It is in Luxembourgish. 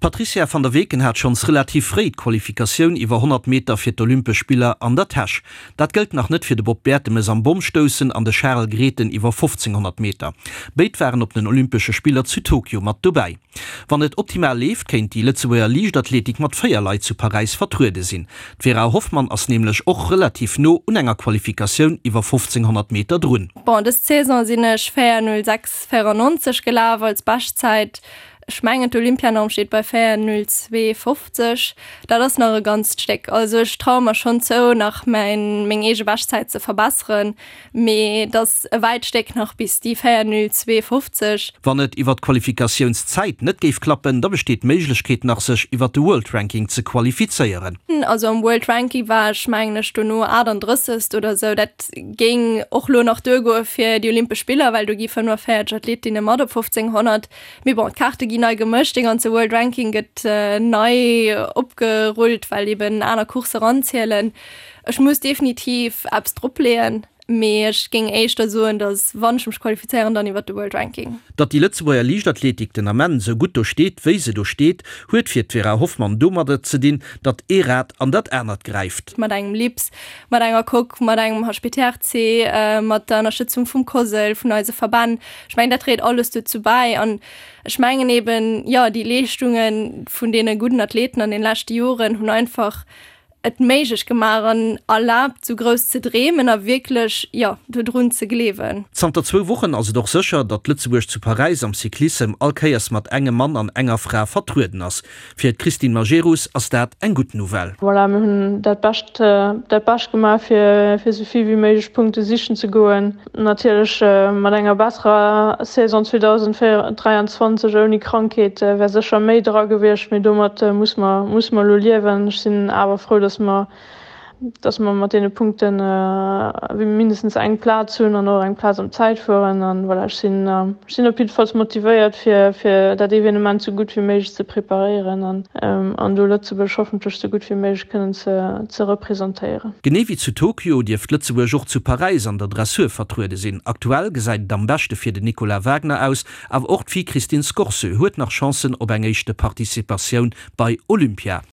D'Patrizia van der Weken hat schonns relativ fréi d'Qualifikatioun iwwer 100 Meter fir d'Olympesch Spiller an der Täsch. Dat gëllt nach net fir de Bob Bertemes am Bommstoussen an de Charel Grethen iwwer 1500 Meter. Béid waren op den Olympesche Spiller zu Tokio mat dobäi. Wann et optimal leeft, kéint déi Lëtzebuerger Liichtathletik mat 4 Leit zu Paräis vertruede sinn. D'Vera Hoffmann ass nämlech och relativ no un enger Qualifikatioun iwwer 1500 Meter drun. Bon, dës Saison sinn ech 4:06,94 gelaf als Beschtzäit. Ech mengen d'Olympianorm steet bei 4:02,50. Dat ass nach e ganzt Stéck. Also ech traue mer schonn zou, nach mäin, meng eege Beschtzäit ze verbesseren, mee et ass e wäit Stéck nach bis déi 4:02,50. Wann et iwwer d'Qualifikatiounszäit net géif klappen, da besteet d'Méiglechkeet nach sech iwwer de World Ranking ze qualifizéieren. Also am World Ranking war ech mengen ech dono 38. Oder sou. Dat géing och lo nach duergoe fir déi Olympesch Spiller, well do gi 45 Athletinne mat op 1500. Mee bon, d'Kaarte ginn nei gemëscht, dee ganze World Ranking gëtt nei opgerullt, well eben aner Coursse eranzielen. Ech muss definitiv eppes dropleeën, mee ech géing éischter soen, datt wann ech mech qualifizéieren, dann iwwert de World Ranking. Datt déi Lëtzebuerger Liichtathletik den Ament esou gutt do steet, wéi se do steet, huet fir d'Vera Hoffmann domadder ze dinn, datt ee Rad an dat anert gräift. Mat engem LIPS, mat enger Coque, mat engem HPTRC, mat der Ënnerstëtzung vum COSL, vun eise Verbänn. Ech mengen, dat dréit alles dozou bäi. An ech mengen eben, jo, déi Leeschtunge vun deene gudden Athleten an den leschte Joren hunn einfach et méiglech gemaach an erlaabt, esou grouss ze dreemen a wierklech, jo, dodrun ze gleewen. Zanter zwou Wochen ass et och sécher, datt Lëtzebuerg zu Paräis am Cyclissem all Kéiers mat engem Mann an enger Fra vertrueden ass. Fir d'Christine Majerus ass dat eng gutt Nouvelle. Voilà, mir hunn dat Bescht, dat Bescht gemaach, fir, fir esou vill wéi méiglech Punkte sichen ze goen. Natierlech mat enger besserer Saison 2023 ouni Krankheet wär sécher méi dra gewiescht, mee domat muss mer, muss mer elo liewen. Ech sinn awer frou, dass mer, dass mer mat deene Punkte mindestens eng Plaz hunn an och eng Plaz am Zäitfueren. An voilà, ech sinn, ech sinn op jiddefalls motivéiert, fir, fir dat Evenement sou gutt wéi méiglech ze preparéieren an, an do Lëtzebuerg hoffentlech sou gutt wéi méiglech kënnen ze, ze representéieren. Genee wéi zu Tokio dierft Lëtzebuerg och zu Paräis an der Dressur vertruede sinn. Aktuell gesäit et am beschte fir den Nicolas Wagner aus, awer och d'Fi Christine Scorseux huet nach Chancen op eng éischte Participatioun bei Olympia.